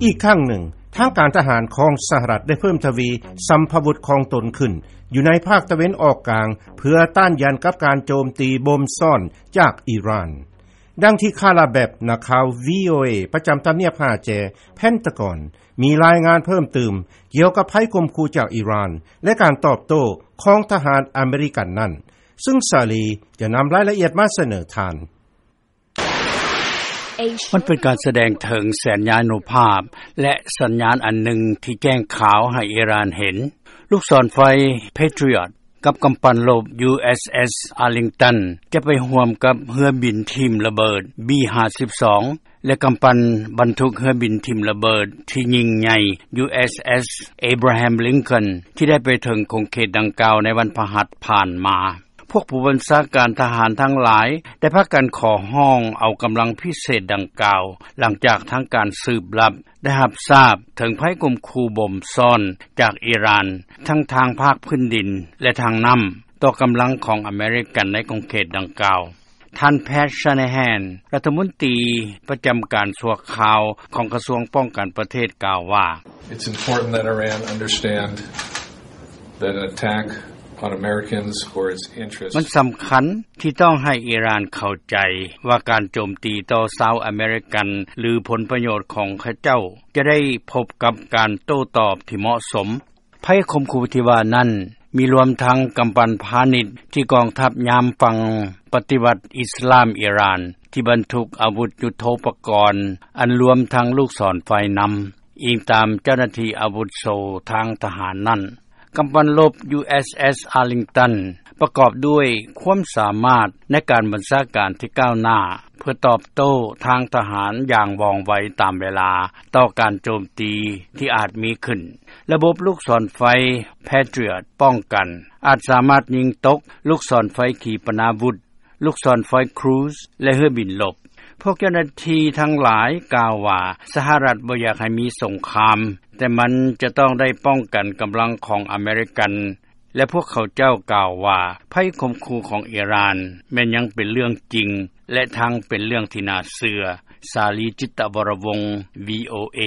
ອີກຄັ້ງໜຶ່ງ ທາງການທະຫານຂອງສະຫະລັດ ໄດ້ເພີ່ມທະວີສຳພະວຸດຂອງຕົນຂຶ້ນ ຢູ່ໃນພາກຕາເວັນອອກກາງ ເພື່ອຕ້ານຢານກັບການໂຈມຕີບົ່ມຊ້ອນຈາກອີຣານ. ດັ່ງທີ່ Kara Babb ນັກຂ່າວ VOA ປະຈຳທຳນຽບຫ້າແຈ Pentagon ມີລາຍງານເພີ່ມຕື່ມ ກ່ຽວກັບໄພຂົ່ມຂູ່ຈາກອີຣານ ແລະ ການຕອບໂຕ້ຂອງທະຫານອາເມລິກັນນັ້ນ, ຊຶ່ງ Sally ຈະນຳລາຍລະອຽດມາສະເໜີທ່ານ. ມັນເປັນການສະແດງເຖິງສັນຍານຸພາບ ແລະ ສັນຍານອັນໜຶ່ງທີ່ແຈ້ງຂາວໃຫ້ອີຣານເຫັນ. ລູກສອນໄຟ Patriot ກັບກຳປັ່ນລົບ USS Arlington ຈະໄປຮ່ວມກັບເຮືອບິນຖິ້ມລະເບີດ B ຫ້າສິບສອງ ແລະ ກຳປັ່ນບັນທຸກເຮືອບິນຖິ້ມລະເບີດທີ່ຍິ່ງໃຫຍ່ USS Abraham Lincoln ທີ່ໄດ້ໄປເຖິງຂົງເຂດດັ່ງກ່າວໃນວັນພະຫັດຜ່ານມາ. ພວກຜູ້ບັນຊາການທະຫານທັງຫຼາຍ ໄດ້ພາກັນຂໍຮ້ອງເອົາກຳລັງພິເສດດັ່ງກ່າວ ຫຼັງຈາກທາງການສືບລັບໄດ້ຮັບຊາບເຖິງໄພຂົ່ມຂູ່ບົ່ມຊ້ອນຈາກອີຣານ ທັງທາງພາກພື້ນດິນ ແລະ ທາງນ້ຳ ຕໍ່ກຳລັງຂອງອາເມລິກັນໃນຂົງເຂດດັ່ງກ່າວ. ທ່ານ Pat Shanahan ລັດຖະມົນຕີປະຈຳການຊົ່ວຄາວຂອງກະຊວງປ້ອງກັນປະເທດ ກ່າວວ່າ: It's important that Iran understand that an attack on Americans or its interests ມັນສຳຄັນທີ່ຕ້ອງໃຫ້ອີຣານເຂົ້າໃຈວ່າການໂຈມຕີຕໍ່ຊາວອາເມລິກັນ ຫຼື ຜົນປະໂຫຍດຂອງເຂົາເຈົ້າ ຈະໄດ້ພົບກັບການໂຕ້ຕອບທີ່ເໝາະສົມ. ໄພຂົ່ມຂູ່ທີ່ວ່ານັ້ນ ມີລວມທັງກຳປັ່ນພານິດທີ່ກອງທັບຍາມຝັ່ງປະຕິວັດອິສລາມອີຣານ ທີ່ບັນທຸກອາວຸດຍຸດໂທປະກອນ ອັນລວມທັງລູກສອນໄຟນຳ, ອີງຕາມເຈົ້າໜ້າທີ່ອາວຸດໂສທາງທະຫານນັ້ນ. ກຳປັ່ນລົບ USS Arlington ປະກອບດ້ວຍຄວາມສາມາດໃນການບັນຊາການທີ່ກ້າວໜ້າ ເພື່ອຕອບໂຕ້ທາງທະຫານຢ່າງວ່ອງໄວຕາມເວລາຕໍ່ການໂຈມຕີທີ່ອາດມີຂຶ້ນ. ລະບົບລູກສອນໄຟ Patriot ປ້ອງກັນ ອາດສາມາດຍິງຕົກລູກສອນໄຟຂີປະນາວຸດ, ລູກສອນໄຟ Cruise ແລະ ເຮືອບິນລົບ. ພວກເຈົ້າໜ້າທີ່ທັງຫຼາຍກ່າວວ່າ ສະຫະລັດບໍ່ຢາກໃຫ້ມີສົງຄາມ, ແຕ່ມັນຈະຕ້ອງໄດ້ປ້ອງກັນກຳລັງຂອງອາເມລິກັນ ແລະ ພວກເຂົາເຈົ້າກ່າວວ່າ ໄພຂົ່ມຂູ່ຂອງອີຣານແມ່ນຍັງເປັນເລື່ອງຈິງ ແລະ ທັງເປັນເລື່ອງທີ່ໜ້າເຊື່ອ. ສາລີ ຈິດຕະວໍລະວົງ VOA.